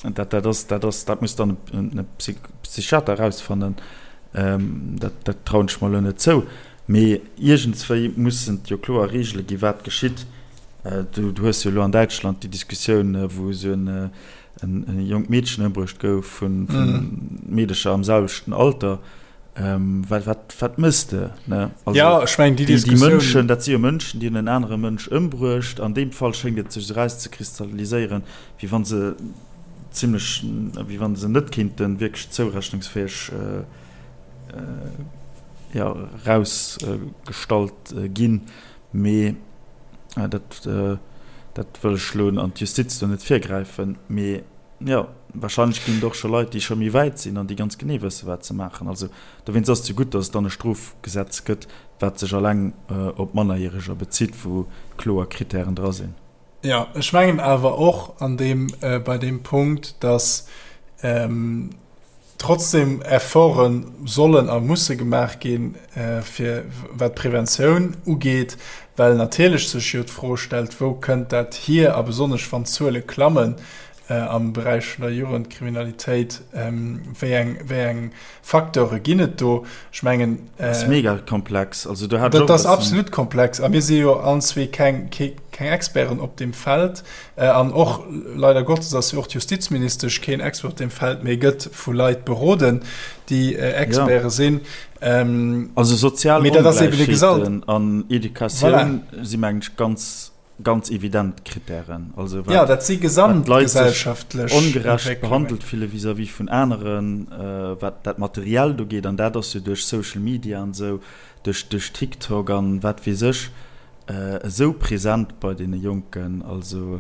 dat, dat ass, dat ass, dat muss dann e Psychiater erausfannen, dat, dat trauen ech mer elo net zou. Mee iergendswéi mussen et jo kloer Reegele ginn, wat geschitt. Du, du hues jo elo an Däitschland déi Diskussioun, wou esou en, en jonkt Meedchen ëmbruecht gouf vu Meedecher am selwechten Alter. Ähm, wat, wat, wat mëss de? Ne? Also, ja, ech meng, déi Diskussioun. Déi Mënschen, dat si jo Mënschen, déi hunn en anere Mënsch ëmbruecht. An deem Fall schéngt et sech esou erauszekristalliséieren, wéi wa se zimlech, wéi wa se net kéinte wierklech zourechnungsfäeg äh, äh, ja, erausgestallt ginn. Mee äh, dat, äh, dat wëll ech elo an d'Justiz do net virgräifen. Mee Jo, wahrscheinlech ginn et och scho Leit, déi scho méi wäit sinn an déi ganz genee wësse wat se maachen. Also dowéinst ass et jo gutt, datt et dann e Strofgesetz gëtt, wat sech alleng op Mannerjäreger bezitt, wou kloer Krittären dra sinn. Jo, ech mengen awer och an deem, bei deem Punkt, datt trotzdem Efforte sollen a musse gemaach ginn, fir wat d'Preventioun ugeet, well natierlech sech jo d'Fro stellt, Wou kënnt dat hier? A besonnesch wann d'Zuele klammen am Beräich vun der Jugendkriminalitéit, wéi eng, wéi eng Facteure ginn et do? Ech mengen. Dat ass mega komplex. Also do hat ech och e bëssen. Dat ass absolut komplex a mir si jo allen zwee keng, keng Experten op deem Feld. An och, leider Gottes, ass jo och d'Justizministesch keen Expert op deem Feld, mee gëtt vu Leit beroden, déi Experte sinn. Also sozial Ongläichheeten an Educatioun si mengen ech ganz, ganz evident Krittären. Also wat, dat si gesamtgesellschaftlech ongerecht behandelt fille vis-à-vis vun aneren, wat dat Materiellt ugeet, an dat ass jo duerch Social Media an esou, duerch, duerch TikTok an wat weess ech, esou present bei deene Jonken. Also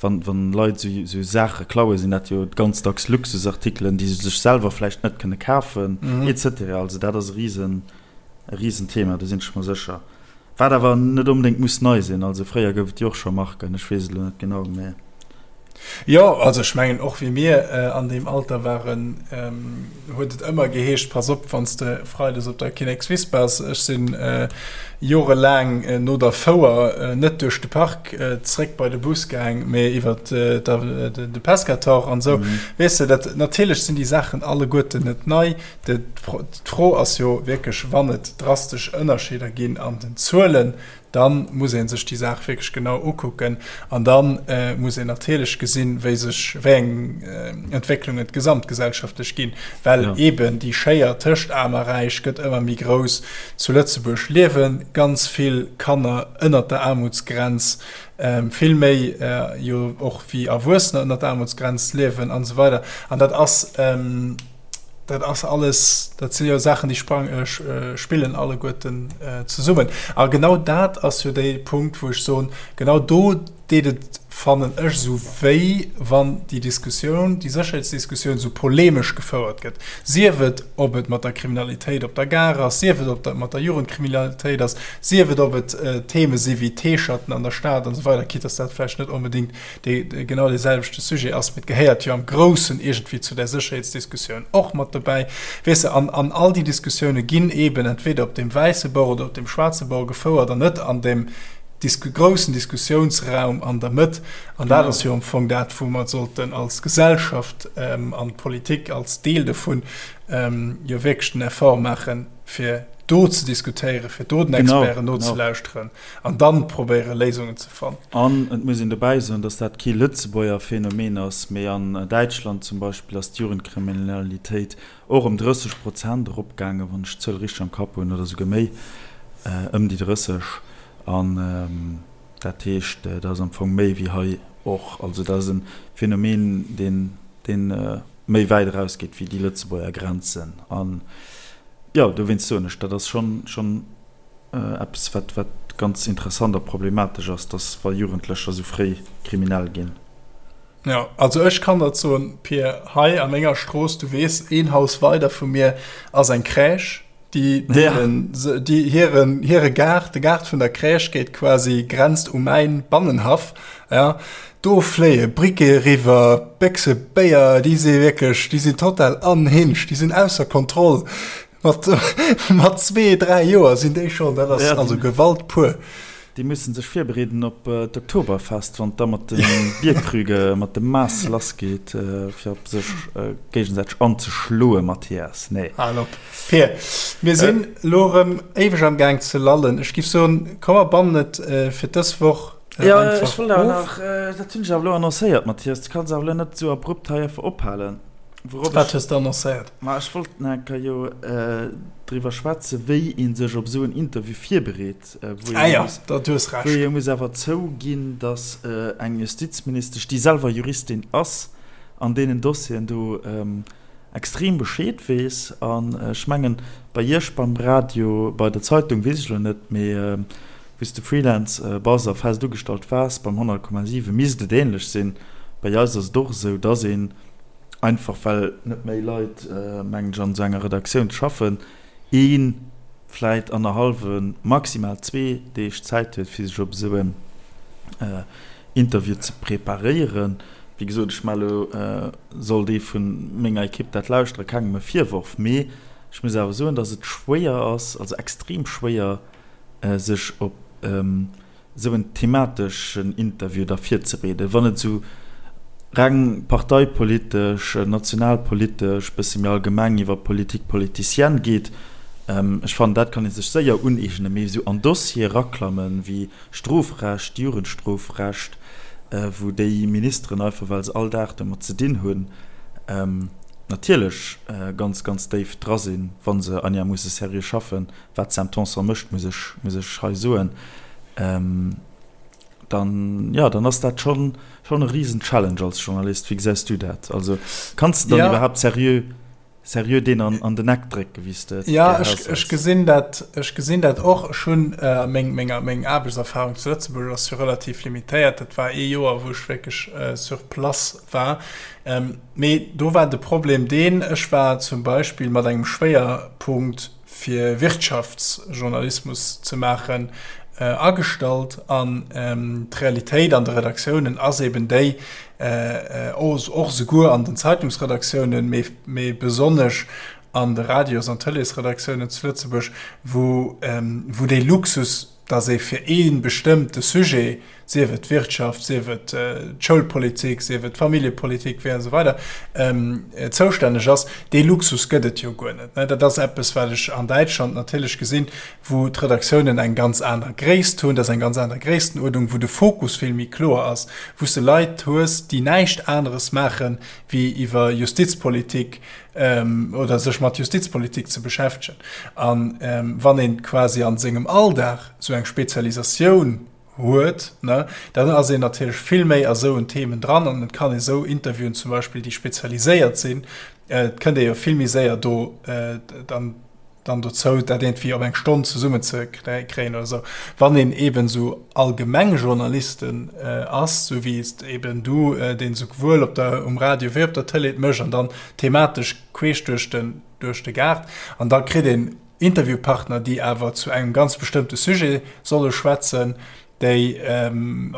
wann, wann Leit esou, esou Saache klauen, sinn dat jo ganz dacks Luxusartikelen, déi se sech selwer vläicht net kënne kafen, et cetera. Also dat ass e risen, e Risenthema, do sinn ech mer sécher. Wat awer net onbedéngt muss nei sinn. Also fréier gouf et jo och scho Marken, ech weess et elo net genau, mä. Jo, also ech mengen och wéi mir an deem Alter waren, huet et ëmmer geheescht, pass op wann s de freides op der Kinnekswiss bass. Ech sinn jorelaang no der Fouer net duerch de Park zréck bei de Bus gaang, mee iwwer de Pescator an esou. Weess de, dat natierlech sinn déi Saachen alleguerten net nei. D'Fro ass jo wierklech, wann et drastesch Ënnerscheeder ginn an den Zuelen, Da muss ee sech déi Saach wierklech genau ukucken an da muss een natierlech gesinn, wéi sech, wéi eng Entwécklungen et gesamtgesellschaftlech ginn, well eeben déi Schéier tëscht Aarm a Räich gëtt ëmmer méi grouss. Zu Lëtzebuerg liewe ganz vill Kanner ënnert der Aarmutsgrenz, vill méi jo och wéi Erwuessener ënnert der Aarmutsgrenz liewen an esou weider. An dat ass. Dat ass alles, dat si jo Saachen, déi sprang, spillen alleguerten zesummen. A genau dat ass jo dee Punkt, wou ech soen, genau do deet et, fannen ech, esou wéi, wann déi Diskussioun, déi Sécherheetsdiskussioun esou polemesch gefouert gëtt, sief et, ob et mat der Kriminalitéit op der Gare ass, sief et, ob dat mat der Jugendkriminalitéit ass, sief et, ob et Theme si wéi T-Shirten an der Stad an esou weider, quitte dass dat vläicht net onbedéngt dee genau dee selwechte Sujet ass, mee et gehéiert jo am Groussen iergendwéi zu där Sécherheetsdiskussioun och mat dobäi, weess de. An, an all déi Diskussioune ginn eeben entweder op deem wäisse Bord oder op deem schwaarze Bord gefouert an net an deem Disku groussen Diskussiounsraum an der Mëtt. An dat ass jo am Fong dat, wou mer sollten als Gesellschaft an d'Politik als Deel dovun jo wierklech den Effort maachen, fir do ze diskutéieren, fir do den Experten nozelauschteren. An dann probéieren, Léisungen ze fannen. An et muss een dobäi soen, datt dat kee Lëtzebuerger Phänomen ass, mee an Däitschland zum Beispill ass d'Jugendkriminalitéit och ëm 30 Prozent eropgaangen, wann ech d'Zuel richteg am Kapp hunn, oder souguer méi, ëm déi 30. An dat heescht, dat ass am Fong méi wéi hei och. Also dat ass e Phänomen, deen, deen méi wäit erausgeet wéi déi Lëtzebuerger Grenzen. An jo, dowéinst soen ech, dat ass schonn, schonn Eppes wat wat ganz interessant a problematesch ass, dass wa Jugendlecher sou fréi kriminell ginn. Jo, also ech kann der soen, Pir, hei a menger Strooss, du weess, een Haus weider vu mir ass eng Crèche, déi deelen, déi hiren, hire Gaart, de Gaart vun der Crèche geet quasi, grenzt u mäin Bannenhaff, ja. Do fléie Briquete eriwwer, Béchse Béier, déi si wierklech, déi sinn total unhinged, déi sinn ausser Kontroll. Mat, mat zwee, dräi Joer sinn déi schonn, dat ass ja, also Gewalt pur. Déi mussen sech virbereeden op äh, d'Oktoberfest, wann da mat de Bierkrüge mat dem Maass lassgeet, äh, fir op sech äh, géigesäiteg anzeschloe, Mathias. Nee. Hal op. Pir, mir sinn äh, lo rëm éiweg am Gaang ze lallen. Ech giff soen, komm mer bannen et äh, fir dës Woch äh, ja, einfach ech wollt awer nach, äh, dat hunn ech awer lo annoncéiert, Mathias. Du kanns awer lo net sou abrupt hei einfach ophalen. Wourop Wat hues de annoncéiert? Ma ech wollt nach eng Kéier jo driwwer schwätzen, wéi ee sech op esou en Interview virbereet, wou Ah jo, da du hues Recht. Wou ee muss awer zouginn, datt eng Justizministesch, déi selwer Juristin ass, an deenen Dossieren do extrem Bescheed weess. An ech mengen, bei Iech beim Radio, bei der Zeitung weess ech elo net, mee wou s de Freelance bass a fest ugestallt waars beim 100,7, misst et änlech sinn. Bei eis ass et och esou, datt een, einfach well net méi Leit, mengen ech, an esou enger Redaktioun schaffen, ee vläit annerhallwe, maximal zwee Deeg Zäit huet, fir sech op esou en Interview ze preparéieren. Wéi gesot, ech maache elo, sollt ee vu menger Ekipp dat lauschteren, kengem e Virworf, mee ech muss awer soen, datt et schwéier ass, also extrem schwéier, sech op esou en themateschen Interview da virzebereeden, wann et esou reng parteipolitesch, nationalpolitesch, bësse méi allgemeng iwwer Politique politicienne geet. Ech fannen, dat kann ee sech séier uneegnen, mee esou an Dossiere eraklammen, wéi Strofrecht, Jugendstrofrecht, wou déi Ministeren einfach, well se all Dag domat ze dinn hunn, natierlech ganz, ganz déif dra sinn, wa se einigermoosse seriö schaffen, wat d'Sam Tanson mécht, muss ech, muss ech hei soen, dann, jo, dann ass dat schonn, schonn e risen Challenge als Journalist. Wéi gesäis du dat? Also kanns de dann ja. iwwerhaapt seriö, seriö deen an, an den Eck drécken, wéi s de et Ja, ech, ech gesinn dat, ech gesinn dat och. Ech hunn äh, meng, meng, meng Aarbechtserfahrung zu Lëtzebuerg ass jo relativ limitéiert. Dat war ee Joer, wou ech wierklech äh, sur place war. Ähm, mee do war de Problem deen, ech war zum Beispill mat engem Schwéierpunkt fir Wirtschaftsjournalismus ze maachen. Agestallt an d'Realitéit an de Redaktiounen ass eben déi, och souguer an den Zeitungsredaktiounen, mee besonnesch an de Radios an Tëleesredaktiounen zu Lëtzebuerg, wou dee Luxus, dass ee fir ee bestëmmte Sujet, sief et d'Wirtschaft, sief et d'Schoulpolitik, sief et d'Familljepolitik, wéi an esou weider, zoustänneg ass, dee Luxus gëtt et jo guer net. Dat ass eppes, wat ech an Däitschland natierlech gesinn, wou d'Redaktiounen eng ganz aner Gréisst hunn, dat ass eng ganz aner Gréisstenuerdnung, wou de Fokus vill méi kloer ass, wou s de Leit hues, déi näischt aneres maachen, wéi iwwer Justizpolitik oder sech mat Justizpolitik ze beschäftegen. A wann ee quasi a sengem Alldag esou eng Spezialisatioun huet, ne, dann ass een natierlech vill méi a souen Themen dran an et kann ee sou Interviewen zum Beispill, déi spezialiséiert sinn, et kënnt ee jo vill méi séier do dann dann dozou, dat iergendwéi op eng Stonn zesummen ze kréien oder esou. Wann een eeben esou allgemeng Journalisten ass, sou wéi s eeben du, deen esouwuel op der, um Radio wéi op der Tëlee et mécht an dann thematesch queesch duerch den, duerch de Gaart, an da kritt een Interviewpartner, déi awer zu engem ganz bestëmmte Sujet solle schwätzen, déi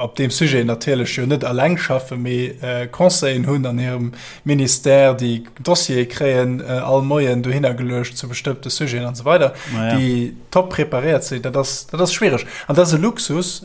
op deem Sujet natierlech jo net eleng schaffen, mee Conseillen hunn an hirem Ministère, déi Dossiere kréien all Moien dohinner geluecht zu bestëmmte Sujeten an esou weider, déi top preparéiert sinn. Dat ass, dat ass schwiereg an dat ass e Luxus,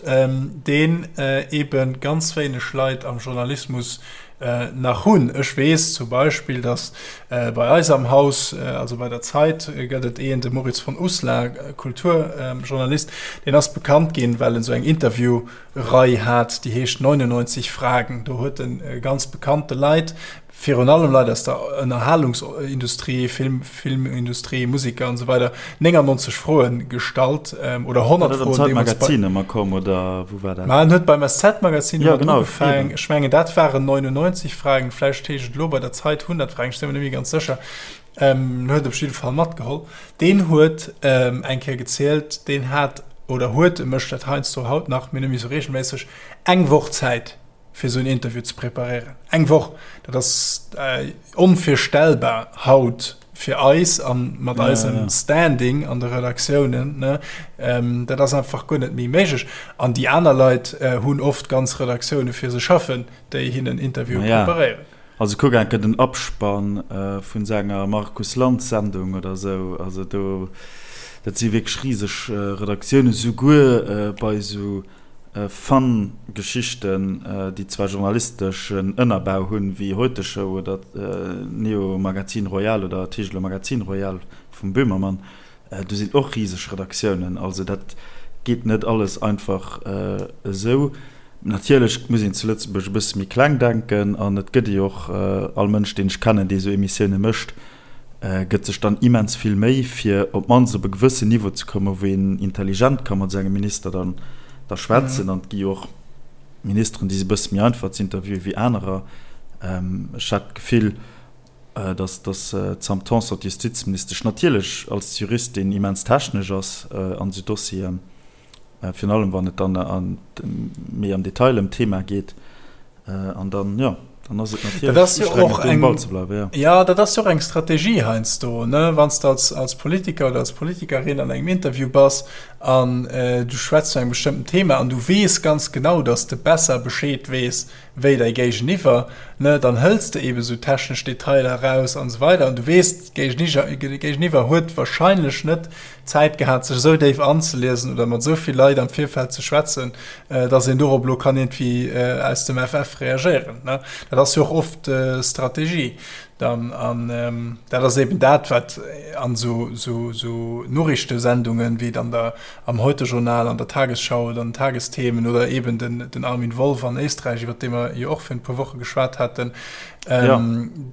deen eebe ganz wéineg Leit am Journalismus nach hunn. Ech weess zum Beispill, datt bei eis am Haus, also bei der Zeit, gëtt et een, de Moritz von Uslar, Kulturjournalist, deen ass bekannt ginn, well en esou eng Interviewrei hat, déi heescht 99 Fragen. Do huet e ganz bekannte Leit, virun allem Leit aus der Ënnerhalungsindustrie, Film, Filmindustrie, Musiker an esou weider, 99 Froen gestallt oder 100 Froen. War dat am Zeitmagazin ëmmer komm oder wou war dat? Ma en huet beim SZ-Magazin ëmmer genau, ugefaangen. Ech mengen dat waren 99 Fragen, vläicht heescht et elo bei der Zeit 100 Fragen, ech si mer net méi ganz sécher. En huet op jidde Fall matgeholl. Deen huet eng Kéier gezielt, deen hat oder huet, e mécht dat heiansdo haut nach, mee net méi esou reegelméisseg, eng Woch Zäit fir esou en Interview ze preparéieren. Eng Woch, dat ass onvirstellbar haut fir eis a mat eisem Standing an de Redaktiounen. Dat ass einfach guer net méi méiglech. An déi aner Leit hunn oft ganz Redaktioune fir se schaffen, déi hinnen Interviewe preparéieren. Also kuck enke den Abspann vun senger Markus Lanz Sendung oder esou. Also do, dat si wierklech riseg Redaktiounen, souguer bei esou Fun Geschichten, déi zwar journalisteschen Ënnerbau hunn, wéi Heute Show oder Neo Magazin Royal oder et heescht elo Magazin Royal vum Böhmermann, do sinn och riseg Redaktiounen. Also dat geet net alles einfach esou. Natierlech muss een zu Lëtzebuerg e bësse méi kleng denken an et gëtt ee jo och all Mënsch, deen ech kennen, dee esou Emissioune mécht, gëtt sech dann immens vill Méi, fir op d'mannst op e gewëssen Niveau ze kommen, wou een intelligent ka mat esou engem Minister dann da schwätzen. An et gi jo och Ministeren, déi si bësse méi einfach ze interviewen wéi anerer. Ech hat d'Gefill, datt datt d'Sam Tanson, d'Justizministesch, natierlech als Juristin immens technesch ass an esou Dossieren, virun allem wann et dann méi am Detail ëm d'Thema geet. An dann, jo, dann ass et natierlech ustrengend, do um Ball ze bleiwen, jo. Jo, dat ass jo och eng Strategie heiansdo, ne? Wann s de als, als Politiker oder als Politikerin an engem Interview bass an du schwätz zu engem bestëmmten Thema an du weess ganz genau, datt s de besser Bescheed weess wéi däi Géigeniwwer, ne, dann hëls de eebe sou technesch Detailer eraus an esou weider an du weess, d'Géigeniwwer huet warscheinlech net Zäit gehat, sech esou déif anzeliesen oder mat esou vill Leit am Virfeld ze schwätzen, dass een dorop elo kann iergendwéi aus dem FF reagéieren. Dat ass jo och oft Strategie dann. An dat ass eben dat, wat an esou Noriichtesendungen, wéi et an der, am Heute-Journal, an der Tagesschau oder an den Tagesthemen oder eben den Armin Wolf an Éisträich, iwwer dee mer jo och virun e puer Woche geschwat haten, ja.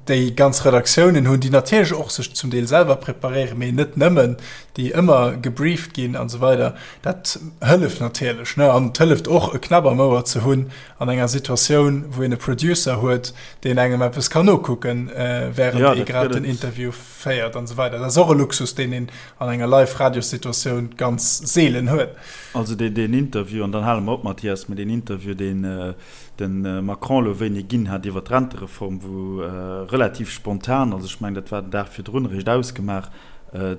déi ganz Redaktiounen hunn, déi natierlech och sech zum Deel selwer preparéieren, mee net nëmmen, déi ëmmer gebrieft ginn an esou weider. Dat hëlleft natierlech, ne? An et hëlleft och, e Knapp am Ouer ze hunn an enger Situatioun, wou een e Producer huet, deen engem eppes kann nokucken, während ja, ee grad den Interview féiert an esou weider. Dat ass och e Luxus, deen een an enger Live-Radios-Situatioun ganz seelen huet. Also deen, deen Interview, an dann hale mer op, Mathias, mee deen Interview, deen de Macron elo wéini ginn hat iwwer d'Rentereform, wou relativ spontan, also ech mengen dat war den Dag virdrun eréischt ausgemaach,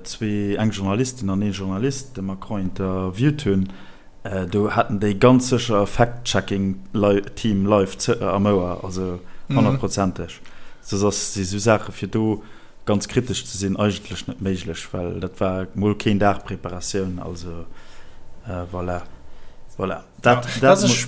zwee, eng Journalistin an ee Journalist de Macron interviewt hunn. Do haten déi ganz sécher e Fact-Checking-Team live am Ouer, also honnertprozenteg. Soss ass si sou Saache fir do ganz kritesch ze sinn eigentlech net méiglech, well dat war mol keen Dag Preparatioun. Also voilà, voilà. Dat, dat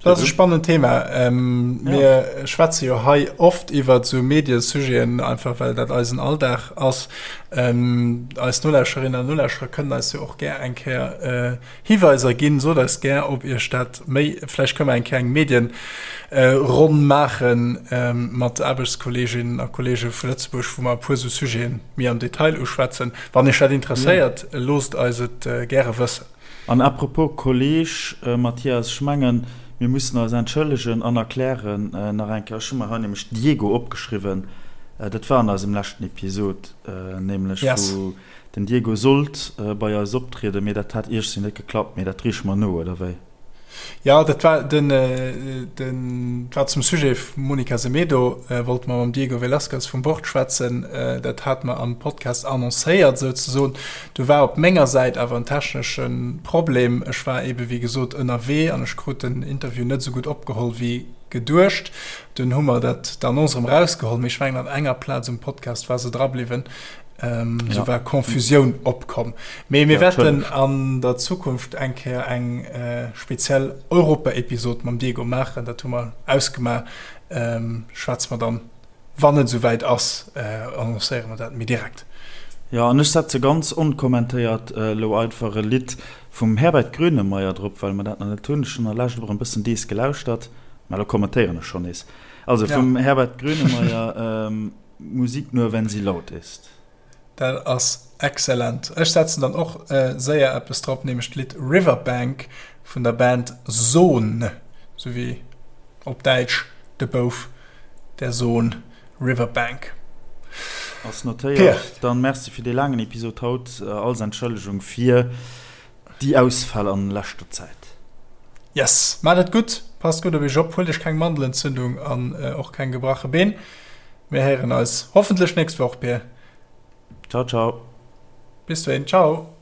Dat ass e spannend Thema. Mir schwätze jo hei oft iwwer esou Mediesujeten, einfach well dat eisen Alldag ass. Eis Nolauschterinnen an Nolauschterer kënnen eis jo och gär eng Kéier Hiweiser ginn. Sot eis gär, ob Iech dat méi, vläicht kënne mer eng Kéier eng Medienronn maache mat Aarbechtskolleeginnen a Kolleege vu Lëtzebuerg, wou mer e puer esou Sujete méi am Detail uschwätzen. Wann Iech dat interesséiert, loosst eis et gäre wëssen. An à propos Kolleg Mathias, ech mengen, mir mussen eis entschëllegen an erklären nach eng Kéier, ech hu mer hei nämlech Diego opgeschriwwen, dat war an eisem leschten Episod nämlech, wou den Diego sollt bei eis optrieden, mee dat hat iergsi net geklappt, mee dat reeche mer no, oder wéi? Jo, dat war den, den war zum Sujet Monica Semedo, wollte mer mam Diego Velazquez vum Wort schwätzen. Dat hate mer am Podcast annoncéiert souzesoen. Do war op menger Säit awer en technesche Problem. Ech war ebe wéi gesot ënnerwee an ech krut den Interview net esou gutt opgeholl wéi geduecht. Dunn hu mer dat d'Annonce erëm erausgeholl, mee ech mengen an enger Plaz um Podcast war se dra bliwwen. Esou war Confusioun opkomm. Mee mir wäerten an der Zukunft eng Kéier eng speziell Europa-Episod mam Diego maachen. Dat hu mer ausgemaach. Schwätze mer dann, wann et esou wäit ass, annoncéiere mer dat méi direkt. Jo, an ech setze ganz onkommentéiert elo einfach e Lidd vum Herbert Grönemeyer drop, well mer dat nach net hunn. Ech hunn an der Lescht och e bëssen dees gelauschtert, mä elo kommentéieren ech schonn nees. Also vum Herbert Grönemeyer. Musik nur wenn sie laut ist. Dat ass excellent. Ech setzen dann och séier eppes drop, nämlech d'Lidd Riverbank vun der Band Sohn, sou wéi op Däitsch de Bouf, der Sohn, Riverbank. Ass notéiert. Dann merci fir dee laangen Episod haut. Als Entschëllegung fir déi Ausfäll an leschter Zäit. Yes, maacht et gutt, passt gutt op iech op, huelt iech keng Mandelentzündung an och keng gebrache Been. Mir héieren eis hoffentlech nächst Woch, Pir. Ciao, ciao. Bis dohin, ciao.